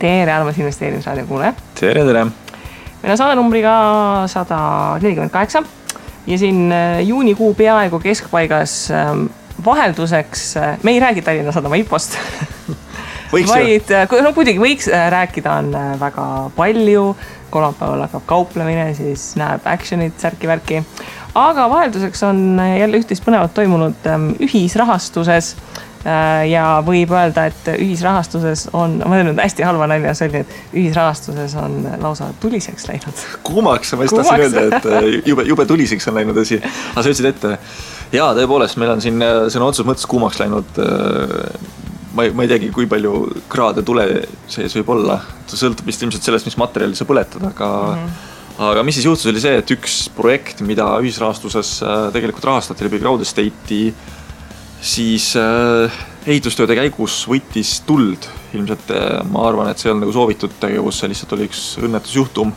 tere armas investeerimisraadio kuule. Tere. Meil on saade numbriga 148 ja siin juunikuu peaaegu keskpaigas vahelduseks, me ei räägi Tallinna Sadama IPO-st, vaid kuidagi võiks rääkida, on väga palju, kolmapäeval hakkab kauplemine, siis näeb actionit, särki-värki, aga vahelduseks on jälle üht-teist põnevat toimunud ühisrahastuses ja võib öelda, et ühisrahastuses on, ma olen hästi halva nalja, see oli, et ühisrahastuses on lausa tuliseks läinud. Kuumaks, ma just tahtsin öelda, et jube tuliseks on läinud asi. Aga sa ütlesid ette, jaa, tõepoolest, meil on siin sõna otsus mõttes kuumaks läinud. Ma ei teagi, kui palju kraade tule sees võib olla. See sõltub vist ilmselt sellest, mis materjali sa põletad, aga mis siis juhtus oli see, et üks projekt, mida ühisrahastuses tegelikult rahastati läbi Crowd Estate'i, siis ehitustööde käigus võttis tuld. Ilmselt ma arvan, et see on nagu soovitud tegevus, see lihtsalt oli üks õnnetusjuhtum.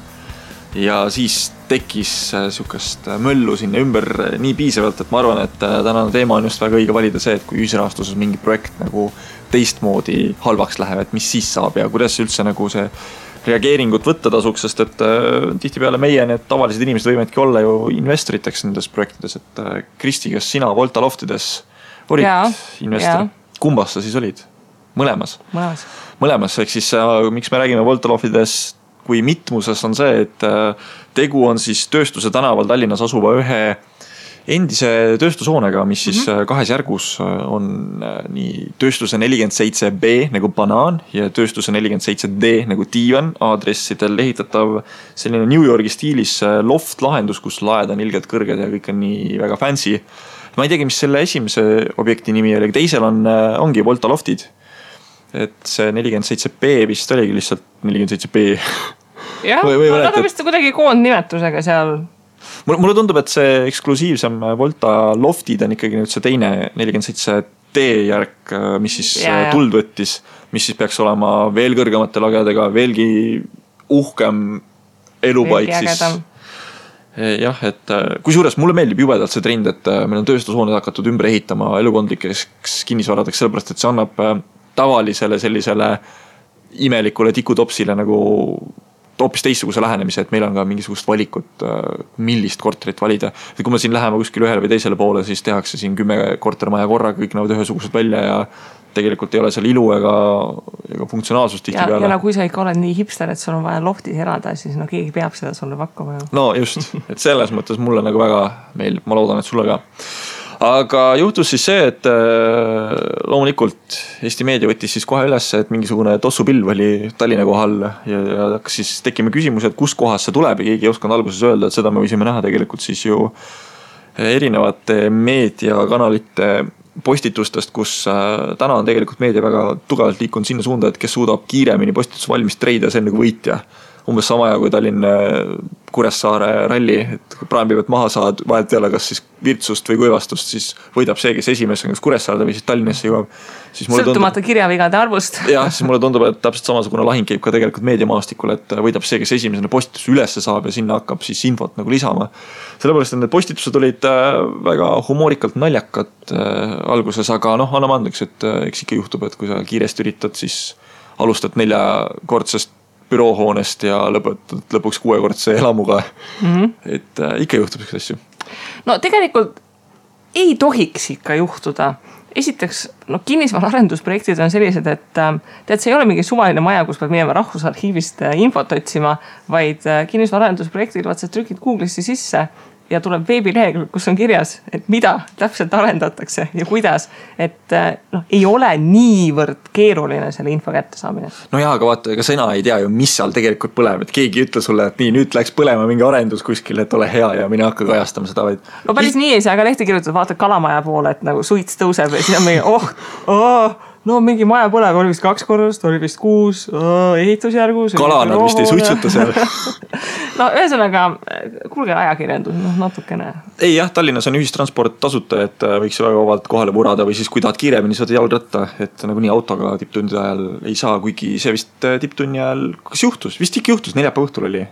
Ja siis tekkis sihukest möllu sinna ümber nii piisavalt, et ma arvan, et tänane teema on just väga õige valida see, et kui ühisrahastuses mingi projekt nagu teistmoodi halvaks läheb, et mis siis saab ja kuidas üldse nagu see reageeringut võtta tasuks, sest et tihtipeale meie need tavalised inimesed võimadki olla ju investoriteks nendes projektides, et Kristi, kas sina Volta Loftides olid investor? Kumbas sa siis olid? Mõlemas, ehk siis miks me räägime Volta Loftides kui mitmuses on see, et tegu on siis Tööstuse tänaval Tallinnas asuva ühe endise tööstushoonega, mis siis kahes järgus on nii Tööstuse 47B nagu banaan ja Tööstuse 47D nagu diivan aadressidel ehitatav selline New Yorgi stiilis loft lahendus, kus laed on ilgelt kõrged ja kõik on nii väga fancy. Ma ei teagi, mis selle esimese objekti nimi oli, teisel ongi Volta Loftid. Et see 47B vist oligi lihtsalt 47B. Jah, nad on vist kuidagi koondnimetusega seal. Mulle tundub, et see eksklusiivsem Volta Loftid on ikkagi nüüd see teine 47D järk, mis siis tuld võttis, mis siis peaks olema veel kõrgemate lagedega, veelgi uhkem elupaik siis. Jah, et kusjuures mulle meeldib jubedalt see trend, et meil on tööstushooned hakatud ümber ehitama elukondlikeks kinnisvaradeks, sellepärast, et see annab tavalisele sellisele imelikule tikutopsile nagu hoopis teistsuguse lähenemise, et meil on ka mingisugust valikut, millist korterit valida. Et kui me siin läheme kuskil ühele või teisele poole, siis tehakse siin 10 kortermaja korraga, kõik näevad ühesugused välja ja tegelikult ei ole seal ilu ega funktsionaalsust tihti peale. Ja kui sa ikka oled nii hipster, et sul on vaja loftis elada, siis keegi peab seda sulle pakkuma. No just, et selles mõttes mulle nagu väga meeldib, ma loodan, et sulle ka. Aga juhtus siis see, et loomulikult Eesti meedia võttis siis kohe üles, et mingisugune tossupilv oli Tallinna kohal ja hakkas siis tekkima küsimus, et kus kohas see tuleb ja keegi ei osanud alguses öelda, et seda me võisime näha tegelikult siis ju erinevate meediakanalite postitustest, kus täna on tegelikult meedia väga tugevalt liikunud sinna suunda, et kes suudab kiiremini postitus valmis treida, see on nagu võitja. Umbes sama ja kui Tallinn Kuressaare ralli, et kui praamipäevad maha saad, vahelt ei ole kas siis virtsust või kuivastust, siis võidab see, kes esimest on kas Kuressaarde või siis Tallinnasse jõuab. Sõltumata kirjavigade arvust. Jah, siis mulle tundub, et täpselt samasugune lahing käib ka tegelikult meediamaastikul, et võidab see, kes esimesena postitus ülesse saab ja sinna hakkab siis infot nagu lisama. Sellepärast, et need postitused olid väga humoorikalt naljakad alguses, aga anname andeks, et eks ikka juhtub, et kui sa kiiresti üritad, siis alustad 4-kordsest büroohoonest ja lõpetad lõpuks 6-kordse elamuga. Et ikka juhtub selline asju. No tegelikult ei tohiks ikka juhtuda. Esiteks, kinnisvaraarendusprojektid on sellised, et tead, see ei ole mingi suvaline maja, kus pead minema Rahvusarhiivist infot otsima, vaid kinnisvaraarendusprojektid, vaat sa trükid Google'isse sisse ja tuleb veebilehekülg, kus on kirjas, et mida täpselt arendatakse ja kuidas, et ei ole niivõrd keeruline selle info kätte saamine. No jaa, aga vaata, ega sina ei tea ju, mis seal tegelikult põleb, et keegi ütle sulle, et nii, nüüd läks põlema mingi arendus kuskil, et ole hea ja mine hakka kajastama seda, vaid... No päris nii ei saa, aga lehti kirjutada, vaata Kalamaja poole, et nagu suits tõuseb ja siis on mingi, mingi maja põleb, oli vist 2 korrust, oli vist 6, ehitusjärgus. Kalana vist ei suitsuta seal. Ühesõnaga, kuulge ajakirjandus, natukene. Ei jah, Tallinnas on ühistransport tasuta, et võiks väga vabalt kohale purada või siis kui tahad kiiremini saada jalgratta, et nagu nii autoga tipptundide ajal ei saa, kuigi see vist tipptunni ajal, kas juhtus? Vist ikka juhtus, 4 õhtul oli.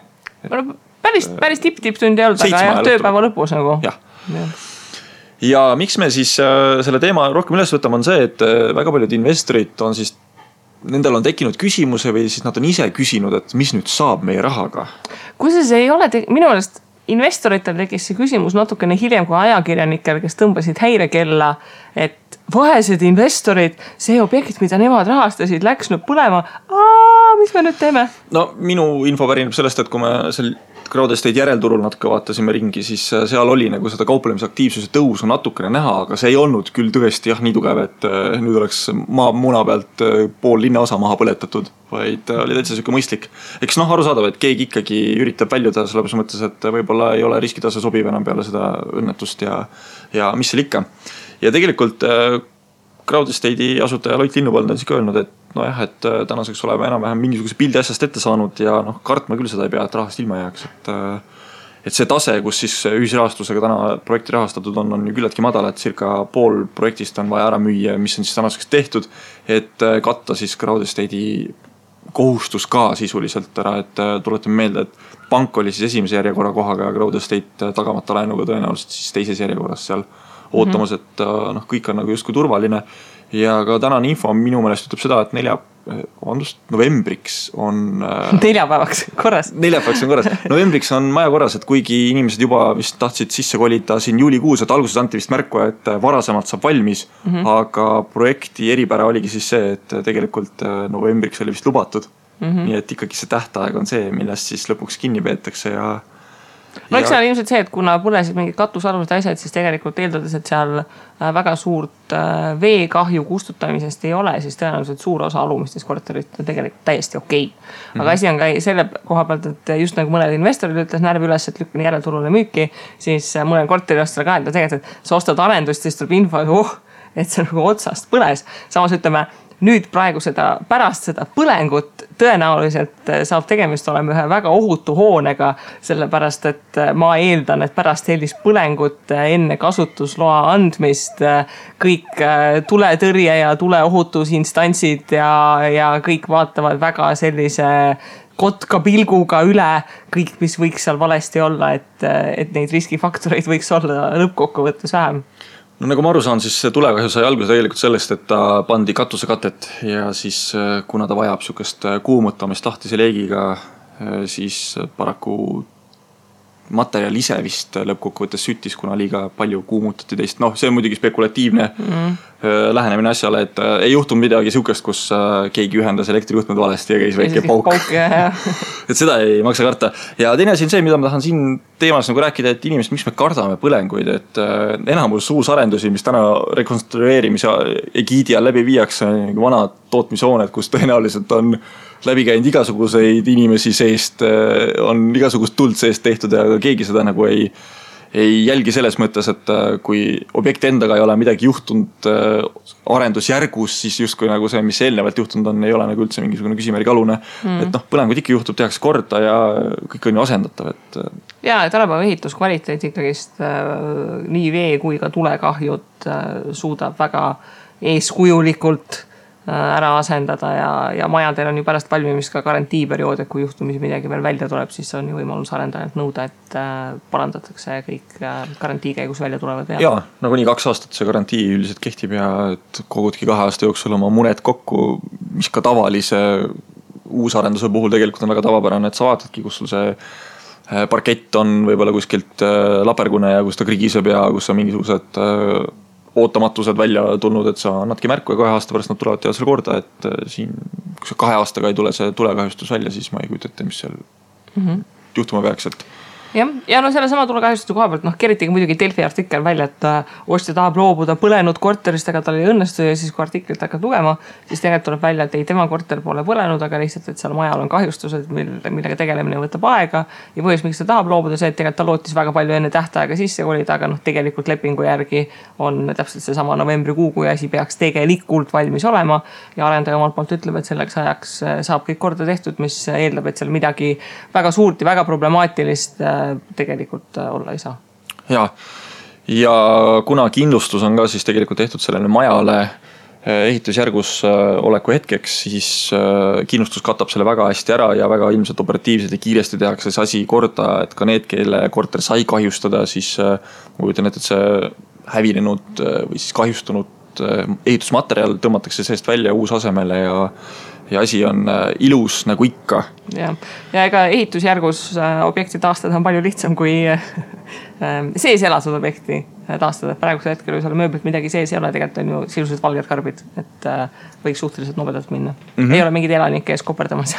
Päris tipptundi ei olnud, aga tööpäeva lõpus nagu. Jah. Ja miks me siis selle teema rohkem üles võtame on see, et väga paljud investorid on siis nendel on tekkinud küsimuse või siis nad on ise küsinud, et mis nüüd saab meie rahaga? Kusjuures ei ole minu meelest investoritel tekkis see küsimus natukene hiljem kui ajakirjanikel, kes tõmbasid häirekella, et vaesed investorid, see objekt, mida nemad rahastasid, läks nüüd põlema. Mis me nüüd teeme? No minu info pärineb sellest, et kui me seal Crowdestate järelturul natuke vaatasime ringi, siis seal oli nagu seda kauplemisaktiivsuse tõusu natukene näha, aga see ei olnud küll tõesti nii tugev, et nüüd oleks muna pealt pool linnaosa maha põletatud, vaid oli täitsa siuke mõistlik. Eks arusaadav, et keegi ikkagi üritab väljuda selles mõttes, et võib-olla ei ole riskitase sobiv enam peale seda õnnetust ja mis seal ikka. Ja tegelikult Crowdestate'i asutaja Loit Linnupõld on siis ka öelnud, et et tänaseks oleme enam-vähem mingisuguse pildi asjast ette saanud ja kartma küll seda ei pea, et rahast ilma jääks. Et see tase, kus siis ühisrahastusega täna projekti rahastatud on ju küllaltki madal, et circa pool projektist on vaja ära müüa, mis on siis tänaseks tehtud, et katta siis Crowdestate'i kohustus ka sisuliselt ära, et tuletame meelde, et pank oli siis esimese järjekorra kohaga ja Crowdestate tagamata laenuga tõenäoliselt siis teises järjekorras seal ootamas, et kõik on nagu justkui turvaline. Ja ka tänane info minu meelest ütleb seda, et novembriks on... Neljapäevaks korras. Neljapäevaks on korras. Novembriks on maja korras, et kuigi inimesed juba vist tahtsid sisse kolida siin juulikuus, et alguses anti vist märku, et varasemalt saab valmis, aga projekti eripära oligi siis see, et tegelikult novembriks oli vist lubatud. Nii et ikkagi see tähtaeg on see, millest siis lõpuks kinni peetakse ja... Eks seal ilmselt see, et kuna põlesid mingid katusalused asjad, siis tegelikult eeldades, et seal väga suurt veekahju kustutamisest ei ole, siis tõenäoliselt suur osa alumistest korterit on tegelikult täiesti okei. Aga asi on ka selle koha pealt, et just nagu mõned investorid ütles närv üles, et lükkan järelturule müüki, siis mõnel korteriostele ka, et tegelikult, et sa ostad arendust, siis tuleb info, et see nagu otsast põles. Samas ütleme, nüüd praegu pärast seda põlengut tõenäoliselt saab tegemist olema ühe väga ohutu hoonega, sellepärast, et ma eeldan, et pärast sellist põlengut enne kasutusloa andmist kõik tuletõrje ja tuleohutusinstantsid ja kõik vaatavad väga sellise kotka pilguga üle kõik, mis võiks seal valesti olla, et neid riskifaktoreid võiks olla lõppkokkuvõttes vähem. No nagu ma aru saan, siis see tulekahju sai alguse tegelikult sellest, et ta pandi katusekatet ja siis kuna ta vajab sükest kuumutamist lahtise leegiga, siis paraku materjal ise vist lõppkokkuvõttes süttis, kuna liiga palju kuumutati teist. See on muidugi spekulatiivne lähenemine asjale, et ei juhtunud midagi sükest, kus keegi ühendas elektrijuhtmed valesti ja käis väike pauk. Et seda ei maksa karta. Ja teine asi on see, mida ma tahan siin teemas nagu rääkida, et inimesed, miks me kardame põlenguid, et enamus uusarendusi, mis täna rekonstrueerimise egiidi all läbi viiakse, vanad tootmishooned, kus tõenäoliselt on läbi käinud igasuguseid inimesi seest, on igasugust tuld seest tehtud ja keegi seda nagu ei jälgi selles mõttes, et kui objekti endaga ei ole midagi juhtunud arendusjärgus, siis justkui nagu see, mis eelnevalt juhtunud on, ei ole nagu üldse mingisugune küsimärgi alune. Et põlengud ikka juhtub, tehakse korda ja kõik on ju asendatav. Ja, et tänapäeva ehituskvaliteet ikkagist nii vee kui ka tulekahjud suudab väga eeskujulikult ära asendada ja majadel on ju pärast valmimist ka garantiiperiood, et kui juhtumisi midagi veel välja tuleb, siis on ju võimalus arendajalt nõuda, et parandatakse kõik garantii käigus välja tulevad vead. Jaa, nagu nii 2 aastat see garantii üldiselt kehtib ja et kogudki 2 aasta jooksul oma muned kokku, mis ka tavalise uusarenduse puhul tegelikult on väga tavapärane, et sa vaatadki, kus sul see parkett on võib-olla kuskilt lapergune ja kus ta krigiseb ja kus on mingisugused ootamatused välja tulnud, et sa annadki märku ja 2 aasta pärast nad tulevad teha selle korda, et siin, kui see 2 aastaga ei tule see tulekahjustus välja, siis ma ei kujuta ette, mis seal juhtuma peaks, et Ja selle sama tulekahjustuse koha pealt, keritigi muidugi Delfi artikkel välja, et ostja tahab loobuda põlenud korterist, aga tal ei õnnestu ja siis kui artiklit hakkad lugema, siis tegelikult tuleb välja, et ei tema korter pole põlenud, aga lihtsalt, et seal majal on kahjustused, millega tegelemine võtab aega ja põhjus, miks ta tahab loobuda see, et tegelikult ta lootis väga palju enne tähtaega sisse kolida, aga tegelikult lepingu järgi on täpselt see sama novembrikuu, kui asi peaks tegelikult valmis olema ja arendaja omalt poolt ütleb, et selleks ajaks saab kõik korda tehtud, mis eeldab, et seal midagi väga suurt ja väga problemaatilist tegelikult olla ei saa. Ja kuna kindlustus on ka siis tegelikult tehtud sellele majale ehitusjärgus oleku hetkeks, siis kindlustus katab selle väga hästi ära ja väga ilmselt operatiivselt ja kiiresti tehakse see asi korda, et ka need, kelle korter sai kahjustada, siis ma kujutan ette, et see hävinenud või siis kahjustunud ehitusmaterjal tõmmatakse seest välja uus asemele ja asi on ilus nagu ikka. Ja ega ehitusjärgus objekti taastada on palju lihtsam kui sees elatud objekti taastada. Praegusel hetkel, kui seal mööblit midagi sees ei ole, tegelikult on ju silused valged karbid, et võiks suhteliselt nobedalt minna. Ei ole mingid elanike ees koperdamas.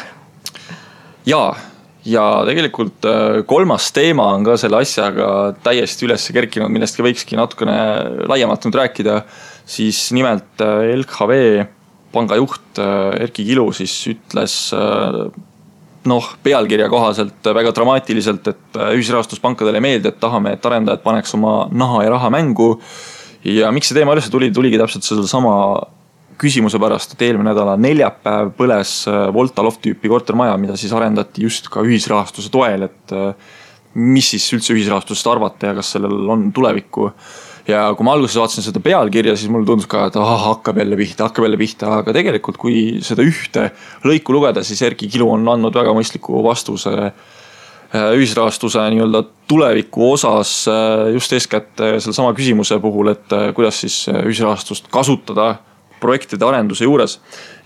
Ja tegelikult kolmas teema on ka selle asjaga täiesti üles kerkinud, millest ka võikski natukene laiemalt nüüd rääkida. Siis nimelt LHV panga juht Erki Kilu siis ütles pealkirja kohaselt väga dramaatiliselt, et ühisrahastuspankadele meeldi, et tahame, et arendajad paneks oma naha ja raha mängu. Ja miks see teema üles tuligi täpselt selle sama küsimuse pärast, et eelmine nädala neljapäev põles Volta Loft tüüpi kortermaja, mida siis arendati just ka ühisrahastuse toel, et mis siis üldse ühisrahastusest arvata ja kas sellel on tulevikku. Ja kui ma alguses vaatasin seda pealkirja, siis mulle tundus ka, et hakkab jälle pihta, aga tegelikult kui seda ühte lõiku lugeda, siis Erki Kilu on andnud väga mõistliku vastuse ühisrahastuse nii-öelda tuleviku osas just eeskätt selle sama küsimuse puhul, et kuidas siis ühisrahastust kasutada projektide arenduse juures.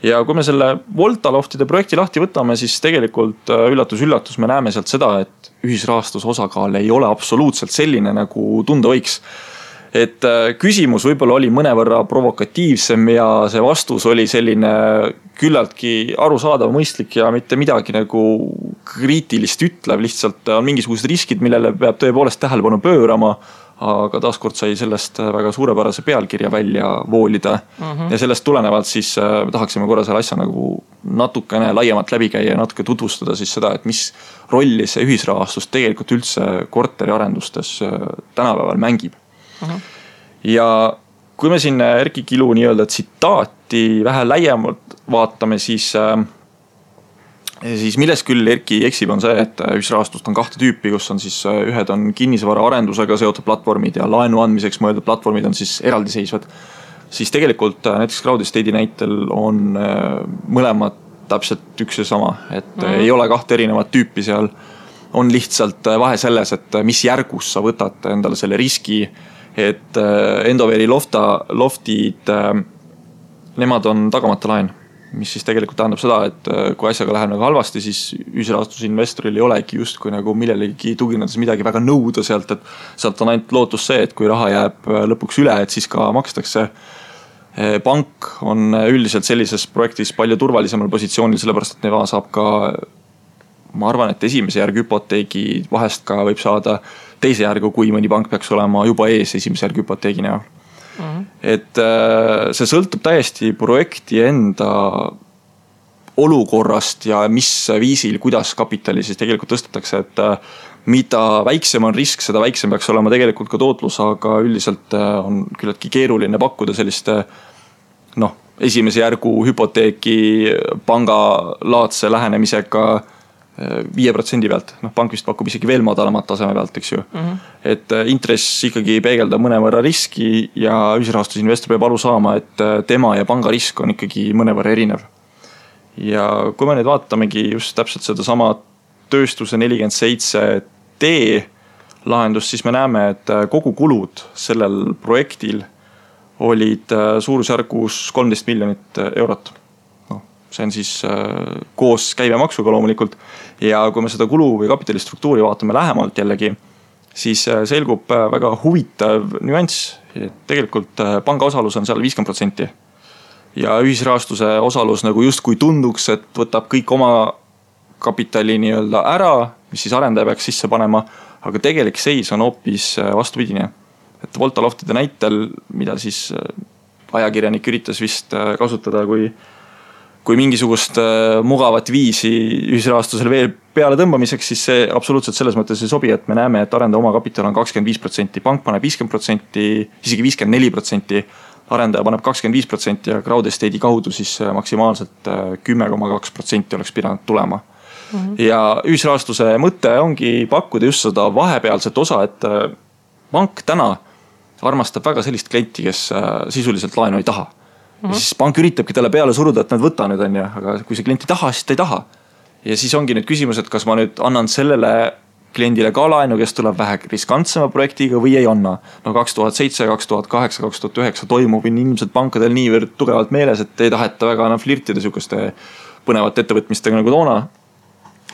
Ja kui me selle Volta Loftide projekti lahti võtame, siis tegelikult üllatus, me näeme sealt seda, et ühisrahastuse osakaal ei ole absoluutselt selline, nagu tunda võiks. Et küsimus võib-olla oli mõnevõrra provokatiivsem ja see vastus oli selline küllaltki arusaadav, mõistlik ja mitte midagi nagu kriitilist ütlev. Lihtsalt on mingisugused riskid, millele peab tõepoolest tähelepanu pöörama, aga taaskord sai sellest väga suurepärase pealkirja välja voolida. Ja sellest tulenevalt siis tahaksime korra selle asja nagu natukene laiemalt läbi käia ja natuke tutvustada siis seda, et mis rolli see ühisrahastus tegelikult üldse korteriarendustes tänapäeval mängib. Ja kui me siin Erki Kilu nii-öelda tsitaati vähe laiemalt vaatame, siis milles küll Erki eksib on see, et ühisrahastust on kahte tüüpi, kus on siis ühed on kinnisvara arendusega seotud platvormid ja laenu andmiseks mõeldud platvormid on siis eraldiseisvad. Siis tegelikult näiteks Crowd Estate'i näitel on mõlemad täpselt üks ja sama, et ei ole kahte erinevat tüüpi seal. On lihtsalt vahe selles, et mis järgus sa võtad endale selle riski, et Endoveri loftid, nemad on tagamata laen, mis siis tegelikult tähendab seda, et kui asjaga läheb nagu halvasti, siis ühisrahastusinvestoril ei olegi just kui nagu millelegi tuginedes midagi väga nõuda sealt, et sealt on ainult lootus see, et kui raha jääb lõpuks üle, et siis ka makstakse. Pank on üldiselt sellises projektis palju turvalisemal positsioonil, sellepärast et neva saab ka, ma arvan, et esimese järg hüpoteegi vahest ka võib saada teise järgu, kui mõni pank peaks olema juba ees esimese järg hüpoteegi näol. Et see sõltub täiesti projekti enda olukorrast ja mis viisil, kuidas kapitali siis tegelikult tõstetakse, et mida väiksem on risk, seda väiksem peaks olema tegelikult ka tootlus, aga üldiselt on küllaltki keeruline pakkuda selliste esimese järgu hüpoteeki pangalaadse lähenemisega 5% pealt. Pank vist pakub isegi veel madalamat taseme pealt, eks ju. Et intress ikkagi peegeldab mõnevõrra riski ja ühisrahastusinvestor peab aru saama, et tema ja panga risk on ikkagi mõnevõrra erinev. Ja kui me nüüd vaatamegi just täpselt seda sama tööstuse 47D lahendust, siis me näeme, et kogu kulud sellel projektil olid suurusjärgus 13 miljonit eurot. See on siis koos käibemaksuga loomulikult. Ja kui me seda kulu või kapitalistruktuuri vaatame lähemalt jällegi, siis selgub väga huvitav nüanss. Tegelikult panga osalus on seal 50%. Ja ühisrahastuse osalus nagu just kui tunduks, et võtab kõik oma kapitali nii-öelda ära, mis siis arendaja peaks sisse panema, aga tegelik seis on hoopis vastupidine. Et Volta Loftide näitel, mida siis ajakirjanik üritas vist kasutada kui mingisugust mugavat viisi ühisrahastusel veel peale tõmbamiseks, siis see absoluutselt selles mõttes ei sobi, et me näeme, et arendaja oma kapital on 25%, pank paneb 50%, isegi 54%, arendaja paneb 25% ja Crowd Estate'i kaudu siis maksimaalselt 10,2% oleks pidanud tulema. Ja ühisrahastuse mõte ongi pakkuda just seda vahepealset osa, et pank täna armastab väga sellist klienti, kes sisuliselt laenu ei taha. Ja siis pank üritabki talle peale suruda, et nad võta nüüd on ja, aga kui see klient ei taha, siis ta ei taha. Ja siis ongi nüüd küsimus, et kas ma nüüd annan sellele kliendile ka laenu, kes tuleb vähe riskantsema projektiga või ei anna. No 2007, 2008, 2009 toimub ilmselt pankadel niivõrd tugevalt meeles, et ei taheta väga enam flirtida sihukeste põnevate ettevõtmistega nagu toona.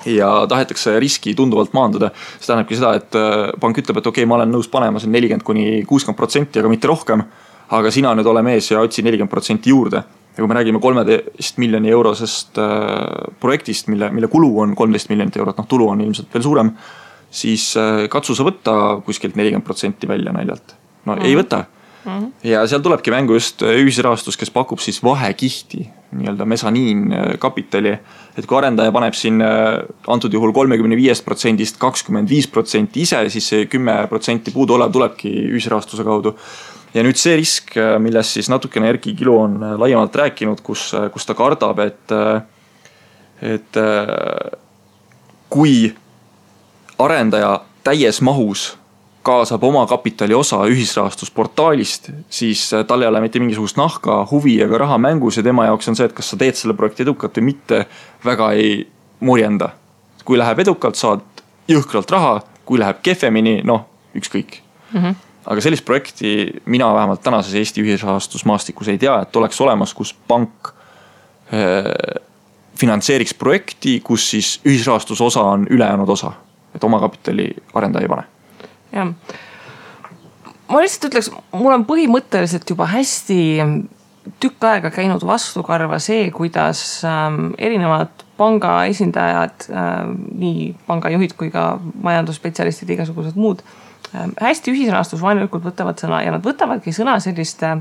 Ja tahetakse riski tunduvalt maandada. See tähendabki seda, et pank ütleb, et okei, ma olen nõus panema 40–60%, aga mitte rohkem. Aga sina nüüd ole mees ja otsi 40% juurde. Ja kui me räägime 13 miljoni eurosest projektist, mille kulu on 13 miljonit eurot, tulu on ilmselt veel suurem, siis katsu sa võtta kuskilt 40% välja naljalt. No ei võta. Ja seal tulebki mängu just ühisrahastus, kes pakub siis vahekihti, nii-öelda mesaniin kapitali, et kui arendaja paneb siin antud juhul 35%-st 25% ise, siis see 10% puudu olev tulebki ühisrahastuse kaudu. Ja nüüd see risk, milles siis natukene Erki Kilu on laiemalt rääkinud, kus ta kardab, et kui arendaja täies mahus kaasab oma kapitali osa ühisrahastusportaalist, siis tal ei ole mitte mingisugust nahka, huvi ega raha mängus ja tema jaoks on see, et kas sa teed selle projekti edukalt või mitte, väga ei murjenda. Kui läheb edukalt, saad jõhkralt raha, kui läheb kehvemini, ükskõik. Aga sellist projekti mina vähemalt tänases Eesti ühisrahastusmaastikus ei tea, et oleks olemas, kus pank finantseeriks projekti, kus siis ühisrahastuse osa on ülejäänud osa, et oma kapitali arendaja ei pane. Ja. Ma lihtsalt ütleks, mul on põhimõtteliselt juba hästi tükk aega käinud vastukarva see, kuidas erinevad panga esindajad, nii pangajuhid kui ka majandusspetsialistid, igasugused muud, hästi ühisrahastusvaenulikult võtavad sõna ja nad võtavadki sõna selliste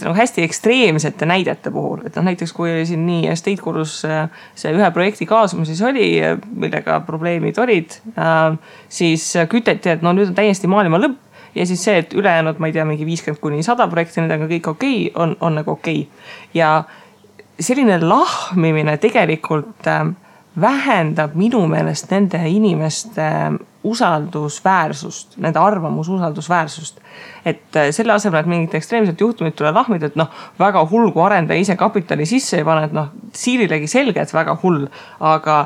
nagu hästi ekstreemsete näidete puhul. Et näiteks kui oli siin nii Estate Gurus see ühe projekti kaasumises oli, millega probleemid olid, siis küteti, et nüüd on täiesti maailma lõpp ja siis see, et ülejäänud, ma ei tea, mingi 50–100 projekti, need on kõik okei, on nagu okei. Ja selline lahmimine tegelikult vähendab minu meelest nende inimeste usaldusväärsust, nende arvamususaldusväärsust. Et selle asemel, et mingit ekstreemset juhtumit tule lahmida, et väga hull, kui arendaja ise kapitali sisse ei pane, et siirilegi selge, et väga hull, aga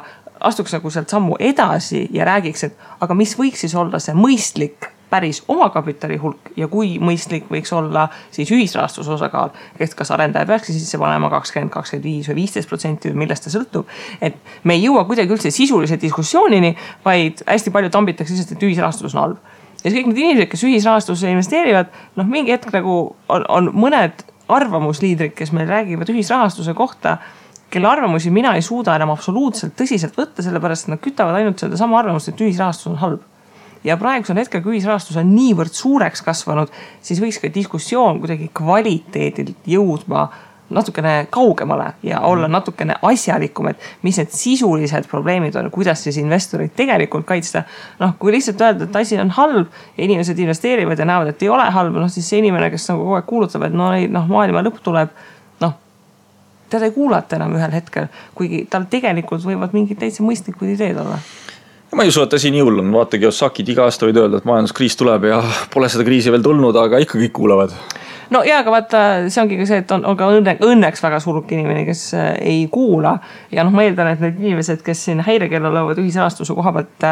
astuks nagu sealt sammu edasi ja räägiks, et aga mis võiks siis olla see mõistlik päris oma kapitali hulk ja kui mõistlik võiks olla siis ühisrahastuse osakaal, et kas arendaja peaks sisse panema 20, 25 või 15% või millest ta sõltub. Et me ei jõua kuidagi üldse sisulise diskussioonini, vaid hästi palju tambitakse lihtsalt, et ühisrahastus on halb. Ja kõik need inimesed, kes ühisrahastusse investeerivad, mingi hetk nagu on mõned arvamusliidrid, kes meil räägivad ühisrahastuse kohta, kelle arvamusi mina ei suuda enam absoluutselt tõsiselt võtta, sellepärast nad kütavad ainult seda sama arvamust, et ühisrahastus on halb. Ja praegusel hetkel, kui ühisrahastus on niivõrd suureks kasvanud, siis võiks ka diskussioon kuidagi kvaliteedilt jõudma natukene kaugemale ja olla natukene asjalikum, et mis need sisulised probleemid on, kuidas siis investorid tegelikult kaitsta. Kui lihtsalt öelda, et asi on halb ja inimesed investeerivad ja näevad, et ei ole halb, siis see inimene, kes nagu kogu aeg kuulutab, et maailma lõpp tuleb, teda ei kuulata enam ühel hetkel, kuigi tal tegelikult võivad mingid täitsa mõistlikud ideed olla. Ma ei usu, et asi nii hull on. Vaata, Kiyosakid iga aasta võid öelda, et majanduskriis tuleb ja pole seda kriisi veel tulnud, aga ikka kõik kuulavad. No jaa, aga vaata, see ongi ka see, et on ka õnneks väga suruk inimene, kes ei kuula. Ja ma eeldan, et need inimesed, kes siin häirekella lõuvad ühisrahastuse koha pealt,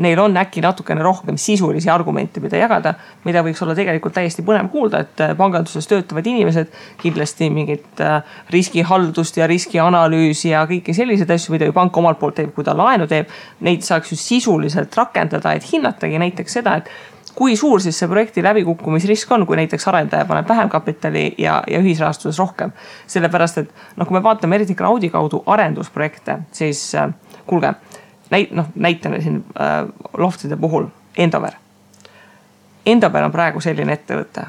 neil on äkki natukene rohkem sisulisi argumente, mida jagada, mida võiks olla tegelikult täiesti põnev kuulda, et panganduses töötavad inimesed kindlasti mingit riskihaldust ja riskianalüüsi ja kõiki selliseid asju, mida ju pank omalt poolt teeb, kui ta laenu teeb, neid saaks ju sisuliselt rakendada, et hinnatagi näiteks seda, et kui suur siis see projekti läbikukkumisrisk on, kui näiteks arendaja paneb vähem kapitali ja ühisrahastuses rohkem. Sellepärast, et kui me vaatame eriti crowdi kaudu arendusprojekte, siis kuulge, näitame siin loftide puhul Endover. Endover on praegu selline ettevõte,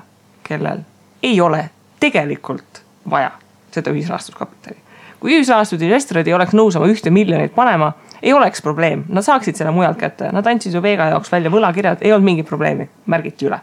kellel ei ole tegelikult vaja seda ühisrahastuskapitali. Kui ühisrahastud investorid ei oleks nõus oma 1 miljonit panema, ei oleks probleem. Nad saaksid selle mujalt kätte. Nad andsid ju Vega jaoks välja võlakirjad, ei olnud mingit probleemi, märgiti üle.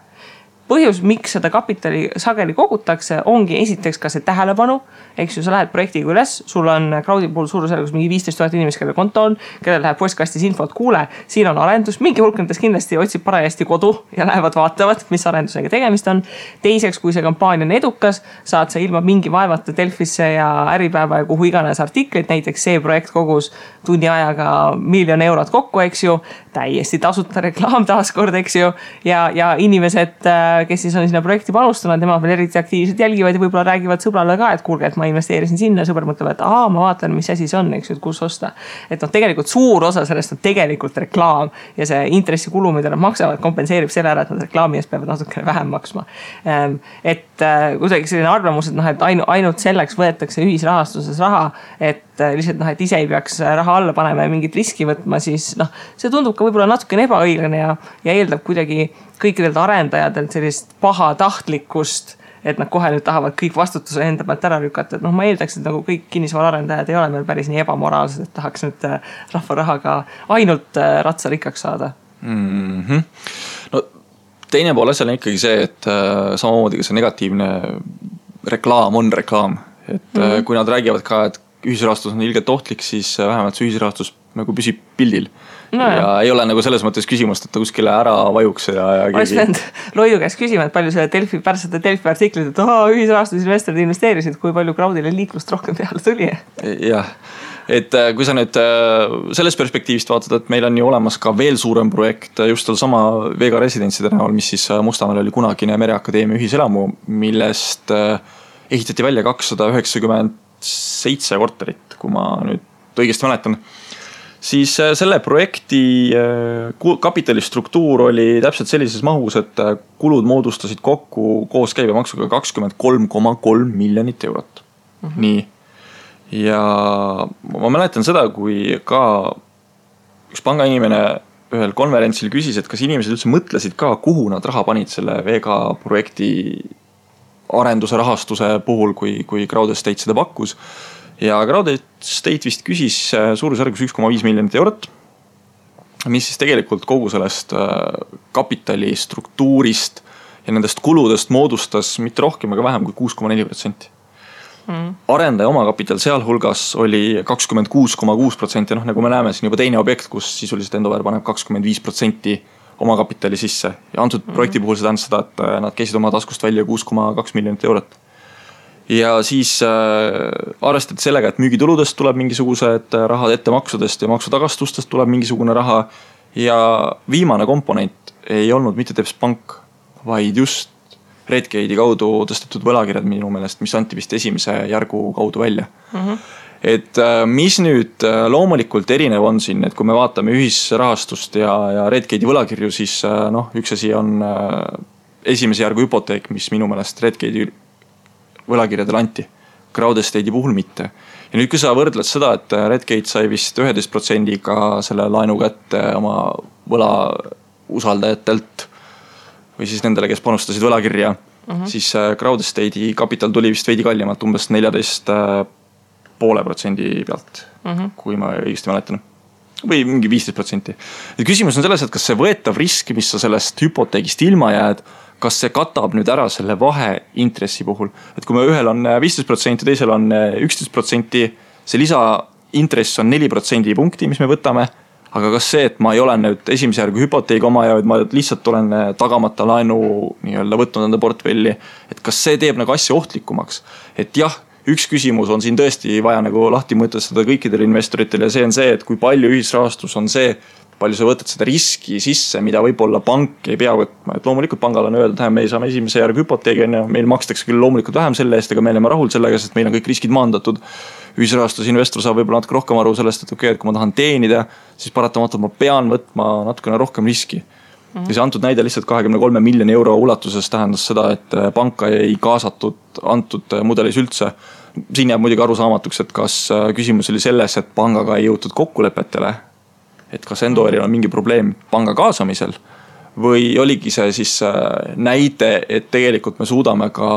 põhjus, miks seda kapitali sageli kogutakse, ongi esiteks ka see tähelepanu, eks ju, sa lähed projektiga üles, sul on crowd'i puhul suurusjärgus mingi 15 000 inimest, kelle konto on, kellel läheb postkastis infot, kuule, siin on arendus, mingi hulk nendest kindlasti otsib parajasti kodu ja lähevad vaatavad, mis arendusega tegemist on. Teiseks, kui see kampaania on edukas, saad sa ilma mingi vaevata Delfisse ja Äripäeva ja kuhu iganes artikleid, näiteks see projekt kogus tunni ajaga 1 000 000 eurot kokku, eks ju, täiesti tasuta reklaam taaskord, eks ju, ja inimesed, kes siis on sinna projekti panustanud, nemad veel eriti aktiivselt jälgivad ja võib-olla räägivad sõbrale ka, et kuulge, et ma investeerisin sinna, sõber mõtleb, et ma vaatan, mis asi see on, eks ju, et kus osta. Et tegelikult suur osa sellest on tegelikult reklaam ja see intressikulu, mida nad maksavad, kompenseerib selle ära, et nad reklaami eest peavad natukene vähem maksma. Et kuidagi selline arvamus, et ainult selleks võetakse ühisrahastuses raha, et lihtsalt et ise ei peaks raha alla panema ja mingit riski võtma, siis see tundub ka võib-olla natukene ebaõiglane ja eeldab kuidagi kõikidelt arendajatelt sellist pahatahtlikkust, et nad kohe nüüd tahavad kõik vastutuse enda pealt ära lükata. Et ma eeldaks, et nagu kõik kinnisvaraarendajad ei ole meil päris nii ebamoraalsed, et tahaks nüüd rahva rahaga ainult ratsarikkaks saada. No teine pool asjal on ikkagi see, et samamoodi ka see negatiivne reklaam on reklaam. Et kui nad räägivad ka, et ühisrahastus on ilgelt ohtlik, siis vähemalt see ühisrahastus nagu püsib pildil. No, ja ei ole nagu selles mõttes küsimust, et ta kuskile ära vajuks ja oleks pidanud Loidu käest küsima, et palju selle pärast Delfi artiklit, et ühisrahastusinvestorid investeerisid, kui palju crowd'ile liiklust rohkem peale tuli. Jah, et kui sa nüüd selles perspektiivist vaatad, et meil on ju olemas ka veel suurem projekt just sama Vega residentside näol, mis siis Mustamäel oli kunagine Mereakadeemia ühiselamu, millest ehitati välja 297 korterit, kui ma nüüd õigesti mäletan. Siis selle projekti kapitalistruktuur oli täpselt sellises mahus, et kulud moodustasid kokku koos käibemaksuga 23,3 miljonit eurot. Nii. Ja ma mäletan seda, kui ka üks pangainimene ühel konverentsil küsis, et kas inimesed üldse mõtlesid ka, kuhu nad raha panid selle Vega projekti arenduse rahastuse puhul, kui Crowd Estate seda pakkus. Ja Crowd Estate vist küsis suurusjärgus 1,5 miljonit eurot, mis siis tegelikult kogu sellest kapitali struktuurist ja nendest kuludest moodustas mitte rohkem, aga vähem kui 6,4%. Arendaja omakapital sealhulgas oli 26,6%, nagu me näeme siin juba teine objekt, kus sisuliselt Endover paneb 25% omakapitali sisse. Ja antud projekti puhul see tähendab seda, et nad käisid oma taskust välja 6,2 miljonit eurot. Ja siis arvestati sellega, et müügituludest tuleb mingisugused rahad, ettemaksudest ja maksutagastustest tuleb mingisugune raha. Ja viimane komponent ei olnud mitte Teps Pank, vaid just Redgate'i kaudu tõstetud võlakirjad minu meelest, mis anti vist esimese järgu kaudu välja. Et mis nüüd loomulikult erinev on siin, et kui me vaatame ühisrahastust ja Redgate'i võlakirju, siis üks asi on esimese järgu hüpoteek, mis minu meelest Redgate'i võlakirjadel anti, Crowd Estate'i puhul mitte. Ja nüüd kui sa võrdled seda, et Redgate sai vist 11%-ga selle laenu kätte oma võla usaldajatelt või siis nendele, kes panustasid võlakirja, siis Crowd Estate'i kapital tuli vist veidi kallimalt umbes 14,5% pealt, kui ma õigesti mäletan. Või mingi 15%. Ja küsimus on selles, et kas see võetav risk, mis sa sellest hüpoteegist ilma jääd, kas see katab nüüd ära selle vahe intressi puhul. Et kui me ühel on 15%, teisel on 11%, see lisaintress on 4% punkti, mis me võtame. Aga kas see, et ma ei ole nüüd esimese järgu hüpoteegi oma ja ma lihtsalt olen tagamata laenu võtnud enda portfelli, et kas see teeb nagu asja ohtlikumaks. Et jah, üks küsimus on siin tõesti vaja nagu lahti mõtestada kõikidele investoritel ja see on see, et kui palju ühisrahastus on see, palju sa võtad seda riski sisse, mida võib-olla pank ei pea võtma. Et loomulikult pangal on öeldud, et me saame esimese järgu hüpoteegi, meil makstakse küll loomulikult vähem selle eest, aga me oleme rahul sellega, sest meil on kõik riskid maandatud. Ühisrahastusinvestor saab võib-olla natuke rohkem aru sellest, et okei, et kui ma tahan teenida, siis paratamatult ma pean võtma natukene rohkem riski. Ja see antud näide lihtsalt 23 miljoni euro ulatuses tähendas seda, et panka ei kaasatud antud mudelis üldse. Siin jääb muidugi arusaamatuks, et kas küsimus oli selles, et pangaga ei jõutud kokkulepetele, et kas Endoveril on mingi probleem panga kaasamisel või oligi see siis näide, et tegelikult me suudame ka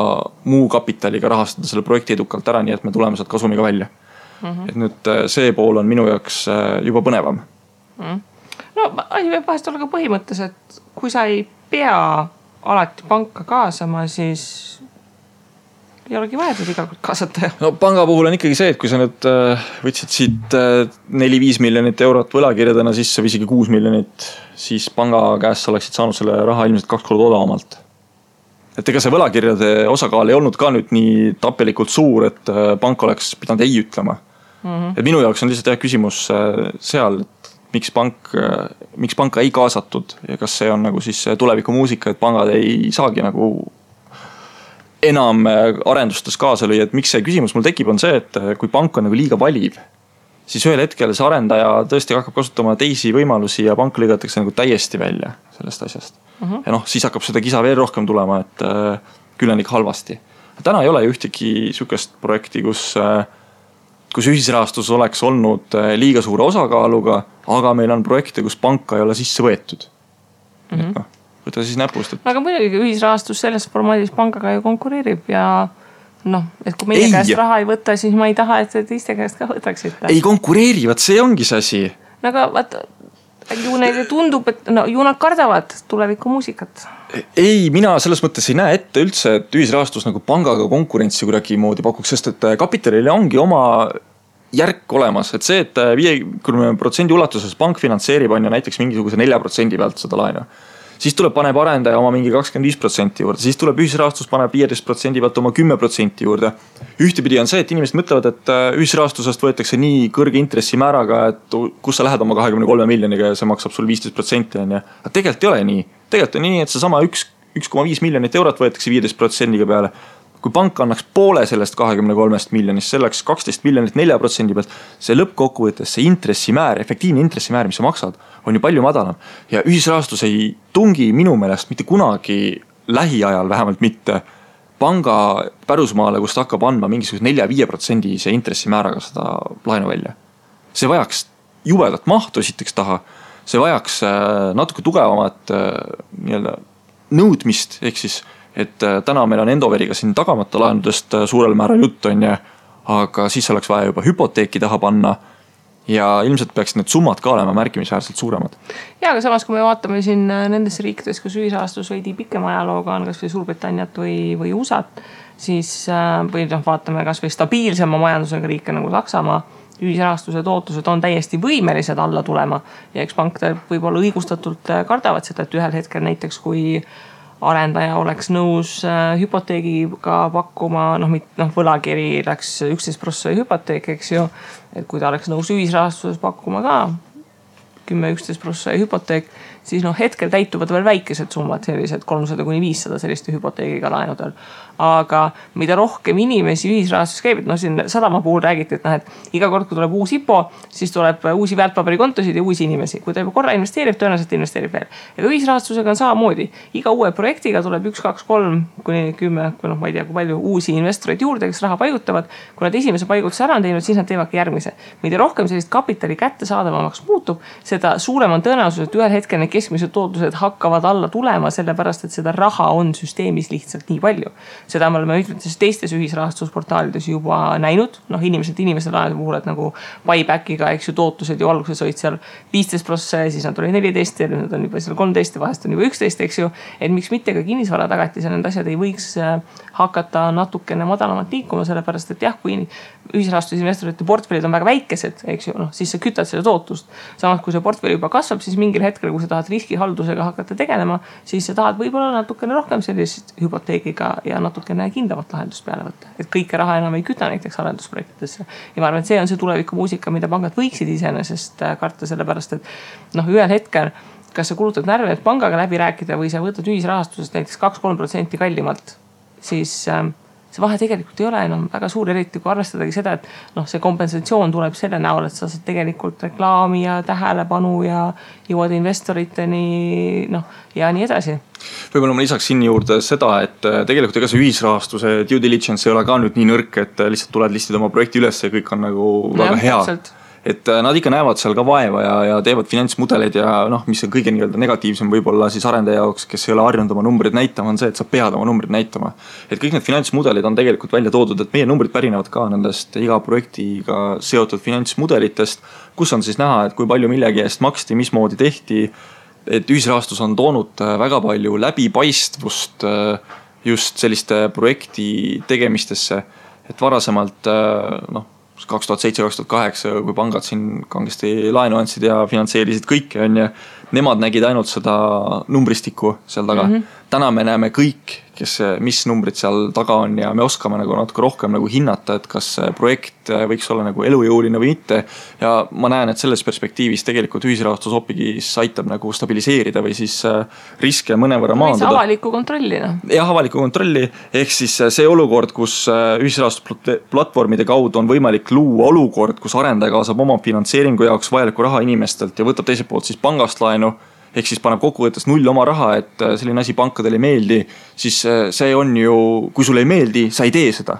muu kapitaliga rahastada selle projekti edukalt ära, nii et me tuleme sealt kasumiga välja. Et nüüd see pool on minu jaoks juba põnevam. No asi võib vahest olla ka põhimõttes, et kui sa ei pea alati panka kaasama, siis ei olegi vaja teda iga kord kaasata. No panga puhul on ikkagi see, et kui sa nüüd võtsid siit 4-5 miljonit eurot võlakirjadena sisse või isegi 6 miljonit, siis panga käest sa oleksid saanud selle raha ilmselt 2 korda odavamalt. Et ega see võlakirjade osakaal ei olnud ka nüüd nii tapelikult suur, et pank oleks pidanud ei ütlema. Et minu jaoks on lihtsalt küsimus seal, et miks panka ei kaasatud ja kas see on nagu siis tuleviku muusika, et pangad ei saagi nagu enam arendustes kaasa lüüa, et miks see küsimus mul tekib, on see, et kui pank on nagu liiga valiv, siis ühel hetkel see arendaja tõesti hakkab kasutama teisi võimalusi ja pank lõigatakse nagu täiesti välja sellest asjast. Ja noh, siis hakkab seda kisa veel rohkem tulema, et küll on ikka halvasti. Täna ei ole ju ühtegi sükest projekti, kus ühisrahastus oleks olnud liiga suure osakaaluga, aga meil on projekte, kus panka ei ole sisse võetud. Et noh, võtta siis näpust. Aga muidugi ühisrahastus selles formaadis pangaga ju konkureerib ja noh, et kui meie käest raha ei võta, siis ma ei taha, et teiste käest ka võtaksite. Ei konkureeri, vaat see ongi see asi. No aga vaata, ju neile tundub, et no, ju nad kardavad tuleviku muusikat. Ei, mina selles mõttes ei näe ette üldse, et ühisrahastus nagu pangaga konkurentsi kuidagi moodi pakuks, sest et kapitalile ongi oma järk olemas, et see, et 50% ulatuses pank finantseerib on ju näiteks mingisuguse 4% pealt seda laenu. Siis tuleb paneb arendaja oma mingi 25% juurde, siis tuleb ühisrahastus paneb 15% pealt oma 10% juurde. Ühtepidi on see, et inimesed mõtlevad, et ühisrahastusest võetakse nii kõrge intressimääraga, et kus sa lähed oma 23 miljoniga ja see maksab sul 15%. Aga tegelikult ei ole nii. Tegelikult on nii, et see sama 1,5 miljonit eurot võetakse 15% peale. Kui pank annaks poole sellest 23 miljonist, selleks 12 miljonit 4% pealt, see lõppkokkuvõttes, see intressimäär, efektiivne intressimäär, mis sa maksad, on ju palju madalam. Ja ühisrahastus ei tungi minu meelest mitte kunagi lähiajal, vähemalt mitte panga pärusmaale, kus ta hakkab andma mingisuguse 4-5% see intressimääraga seda laenu välja. See vajaks jubedat mahtu esiteks taha, see vajaks natuke tugevamat nõudmist, ehk siis et täna meil on Endoveriga siin tagamata laenudest suurel määral jutt on ja, aga siis oleks vaja juba hüpoteeki taha panna ja ilmselt peaks need summad ka olema märkimisväärselt suuremad. Ja, aga samas kui me vaatame siin nendes riikides, kus ühisrahastus veidi pikema ajalooga on kas või Suurbritanniat või USAt, siis või vaatame kas või stabiilsema majandusega riike nagu Saksamaa, ühisrahastuse tootlused on täiesti võimelised alla tulema ja eks pank võib-olla õigustatult kardavad seda, et ühel hetkel näiteks kui arendaja oleks nõus hüpoteegiga pakkuma, võlakiri läks 11% hüpoteek, eks ju, et kui ta oleks nõus ühisrahastuses pakkuma ka 10-11% hüpoteek, siis hetkel täituvad veel väikesed summad, sellised 300-500 selliste hüpoteegiga laenudel. Aga mida rohkem inimesi ühisrahastus käib, siin Sadama puhul räägiti, et iga kord, kui tuleb uus IPO, siis tuleb uusi väärtpaberikontosid ja uusi inimesi. Kui ta juba korra investeerib, tõenäoliselt investeerib veel. Ja ühisrahastusega on samamoodi. Iga uue projektiga tuleb 1, 2, 3 kuni 10, ma ei tea, kui palju uusi investoreid juurde, kes raha paigutavad. Kui nad esimese paigutuse ära on teinud, siis nad teevadki järgmise. Mida rohkem sellist kapitali kätte saadavamaks muutub, seda suurem on tõenäosus, et ühel hetkel need keskmised tootlused hakkavad alla tulema, sellepärast, et seda raha on süsteemis lihtsalt nii palju. Seda me oleme mitmetes teistes ühisrahastusportaalides juba näinud. Inimesed laenude puhul, et nagu buybackiga, eks ju, tootlused ju alguses olid seal 15%, siis nad oli 14 ja nüüd on juba seal 13 ja vahest on juba 11, eks ju. Et miks mitte ka kinnisvara tagatis ja need asjad ei võiks hakata natukene madalamat liikuma, sellepärast, et jah, kui ühisrahastusinvestorite portfellid on väga väikesed, eks ju, siis sa kütad selle tootlust. Samas, kui see portfell juba kasvab, siis mingil hetkel, kui sa tahad riskihaldusega hakata tegelema, siis sa tahad võib-olla natukene rohkem sellist hüpoteegiga ja natukene kindlamat lahendust peale võtta. Et kõike raha enam ei küta näiteks arendusprojektidesse. Ja ma arvan, et see on see tuleviku muusika, mida pangad võiksid iseenesest karta, sellepärast, et ühel hetkel, kas sa kulutad närve, et pangaga läbi rääkida või sa võtad ühisrahastusest näiteks 2-3% kallimalt, siis see vahe tegelikult ei ole enam väga suur, eriti kui arvestadagi seda, et see kompensatsioon tuleb selle näol, et sa saad tegelikult reklaami ja tähelepanu ja jõuad investoriteni ja nii edasi. Võib-olla ma lisaks siin juurde seda, et tegelikult ega see ühisrahastuse due diligence ei ole ka nüüd nii nõrk, et lihtsalt tuled listida oma projekti üles ja kõik on nagu väga hea. Täpselt. Et nad ikka näevad seal ka vaeva ja teevad finantsmudeleid ja mis on kõige negatiivsem võib-olla siis arendaja jaoks, kes ei ole harjunud oma numbrid näitama, on see, et sa pead oma numbrid näitama. Et kõik need finantsmudelid on tegelikult välja toodud, et meie numbrid pärinevad ka nendest iga projektiga seotud finantsmudelitest, kus on siis näha, et kui palju millegi eest maksti, mismoodi tehti, et ühisrahastus on toonud väga palju läbipaistvust just selliste projekti tegemistesse, et varasemalt 2007-2008, kui pangad siin kangesti laenu andsid ja finantseerisid kõike, on ja nemad nägid ainult seda numbristikku seal taga. Täna me näeme kõik, mis numbrid seal taga on ja me oskame nagu natuke rohkem nagu hinnata, et kas projekt võiks olla nagu elujõuline või mitte. Ja ma näen, et selles perspektiivis tegelikult ühisrahastus hoopis aitab nagu stabiliseerida või siis riske mõnevõrra maandada. Avalikku kontrolli. Jah, avalikku kontrolli. Ehk siis see olukord, kus ühisrahastusplatvormide kaudu on võimalik luua olukord, kus arendaja kaasab oma finantseeringu jaoks vajaliku raha inimestelt ja võtab teiselt poolt siis pangast laenu. Ehk siis paneb kokkuvõttes null oma raha, et selline asi pankadel ei meeldi, siis see on ju, kui sulle ei meeldi, sa ei tee seda.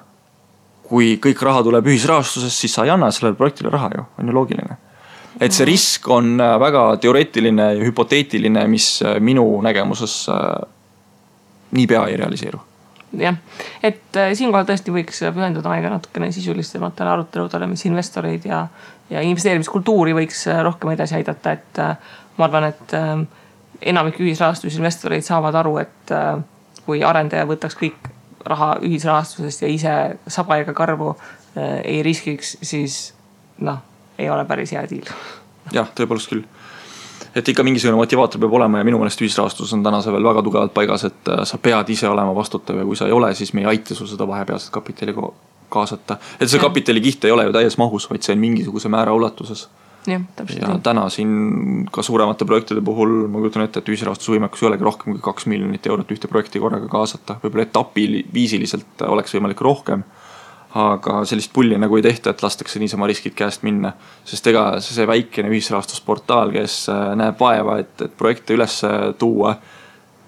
Kui kõik raha tuleb ühisrahastusest, siis sa ei anna sellele projektile raha ju, on ju loogiline. Et see risk on väga teoreetiline ja hüpoteetiline, mis minu nägemuses niipea ei realiseeru. Jah, et siinkohal tõesti võiks pühenduda aega natukene sisulisematele aruteludele, mis investoreid ja investeerimiskultuuri võiks rohkem edasi aidata, et ma arvan, et enamik ühisrahastusinvestoreid saavad aru, et kui arendaja võtaks kõik raha ühisrahastusest ja ise saba ega karvu ei riskiks, siis ei ole päris hea diil. Jah, tõepoolest küll. Et ikka mingisugune motivaator peab olema ja minu meelest ühisrahastus on täna see veel väga tugevalt paigas, et sa pead ise olema vastutav ja kui sa ei ole, siis me ei aita sul seda vahepealset kapitali kaasata. Et see kapitali kiht ei ole ju täies mahus, vaid see on mingisuguse määra ulatuses. Ja täna siin ka suuremate projektide puhul ma kujutan ette, et ühisrahastusvõimekus ei olegi rohkem kui 2 miljonit eurot ühte projekti korraga kaasata. Võib-olla etapiviisiliselt oleks võimalik rohkem, aga sellist pulli nagu ei tehta, et lastakse niisama riskid käest minna. Sest ega see väikene ühisrahastusportaal, kes näeb vaeva, et projekte üles tuua,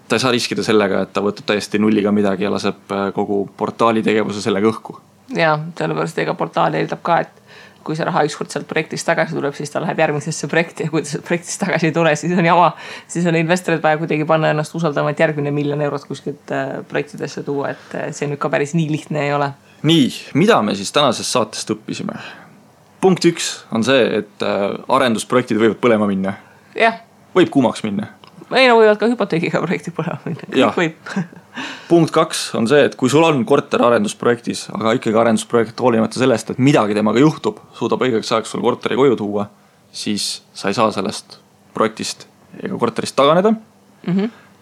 ta ei saa riskida sellega, et ta võtab täiesti nulliga midagi ja laseb kogu portaali tegevuse sellega õhku. Ja, sellepärast ega portaal eeldab ka, et kui see raha ükskord sealt projektist tagasi tuleb, siis ta läheb järgmisesse projekti ja kui ta sealt projektist tagasi ei tule, siis on jama. Siis on investorid vaja kuidagi panna ennast usaldama, et järgmine 1 miljon eurot kuskilt projektidesse tuua, et see nüüd ka päris nii lihtne ei ole. Nii, mida me siis tänasest saatest õppisime? Punkt 1 on see, et arendusprojektid võivad põlema minna. Jah. Võib kuumaks minna. Ei, võivad ka hüpoteegiga projekti põlema minna. Kõik võib. Punkt 2 on see, et kui sul on korter arendusprojektis, aga ikkagi arendusprojekt hoolimata sellest, et midagi temaga juhtub, suudab õigeks ajaks sul korteri koju tuua, siis sa ei saa sellest projektist ega korterist taganeda.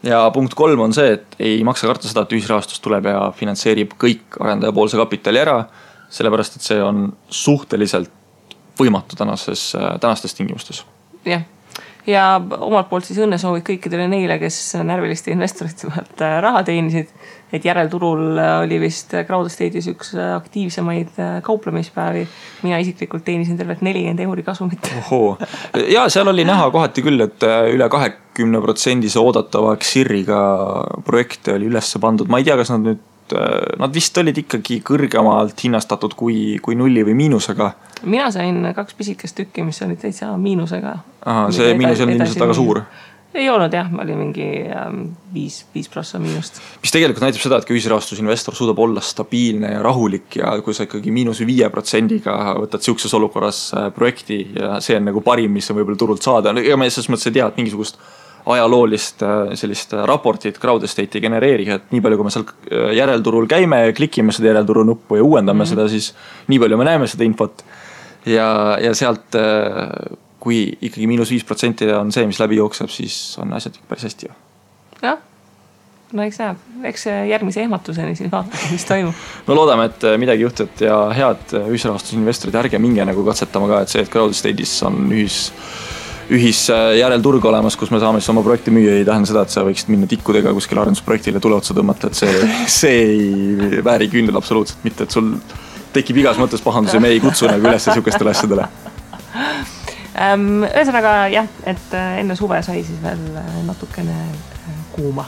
Ja punkt 3 on see, et ei maksa karta seda, et ühisrahastus tuleb ja finantseerib kõik arendaja poolse kapitali ära, sellepärast, et see on suhteliselt võimatu tänastes tingimustes. Jah. Ja omalt poolt siis õnnesoovid kõikidele neile, kes närviliste investorite pealt raha teenisid, et järelturul oli vist Crowdestate'is üks aktiivsemaid kauplemispäevi. Mina isiklikult teenisin tervelt 40 € kasumit. Ohoo. Ja seal oli näha kohati küll, et üle 20% oodatava XIR-iga projekte oli üles pandud. Ma ei tea, kas nad vist olid ikkagi kõrgemalt hinnastatud kui nulli või miinusega. Mina sain 2 pisikest tükki, mis olid täitsa miinusega. Aha, see miinus on ilmselt väga suur. Ei olnud jah, oli mingi 5% miinust. Mis tegelikult näitab seda, et kui ühisrahastusinvestor suudab olla stabiilne ja rahulik ja kui sa ikkagi -5%-ga võtad siukses olukorras projekti ja see on nagu parim, mis on võib-olla turult saada. Ega me selles mõttes ei tea, et mingisugust ajaloolist sellist raportit Crowdestate ei genereeri, et nii palju, kui me seal järelturul käime ja klikime seda järelturu nuppu ja uuendame seda, siis nii palju me näeme seda infot. Ja sealt, kui ikkagi -5% on see, mis läbi jookseb, siis on asjad päris hästi. Jah, no eks näeb. Eks järgmise ehmatuseni siis vaatame, mis toimub. No loodame, et midagi juhtub ja head ühisrahastusinvestorid, ärge minge nagu katsetama ka, et see, et Crowdestate'is on ühis järelturg olemas, kus me saame siis oma projekti müüa, ei tähenda seda, et sa võiksid minna tikkudega kuskil arendusprojektile tule otsa tõmmata, et see ei vääri küünel absoluutselt mitte, et sul tekib igas mõttes pahandus ja me ei kutsu nagu üles sihukestele asjadele. Ühesõnaga jah, et enne suve sai siis veel natukene kuuma.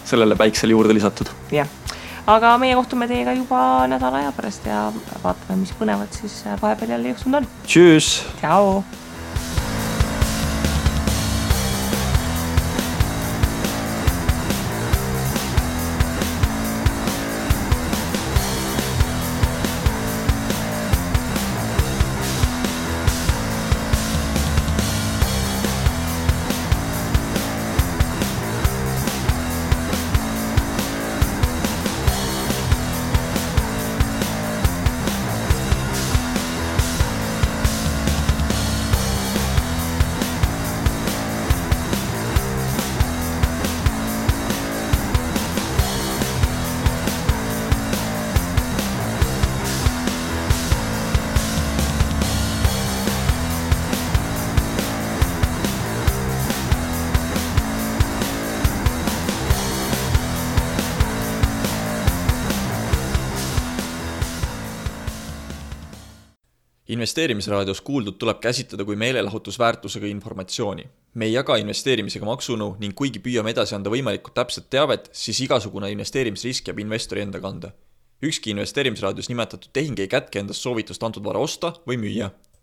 Sellele päiksele juurde lisatud. Jah, aga meie kohtume teiega juba nädala aja pärast ja vaatame, mis põnevad siis vahepeal jälle juhtunud on. Tšüss! Tšau! Investeerimisraadios kuuldud tuleb käsitleda kui meelelahutusväärtusega informatsiooni. Me ei jaga investeerimisega maksunu ning kuigi püüame edasi anda võimalikult täpset teavet, siis igasugune investeerimisrisk jääb investori enda kanda. Ükski investeerimisraadios nimetatud tehing ei kätke endast soovitust antud vara osta või müüa.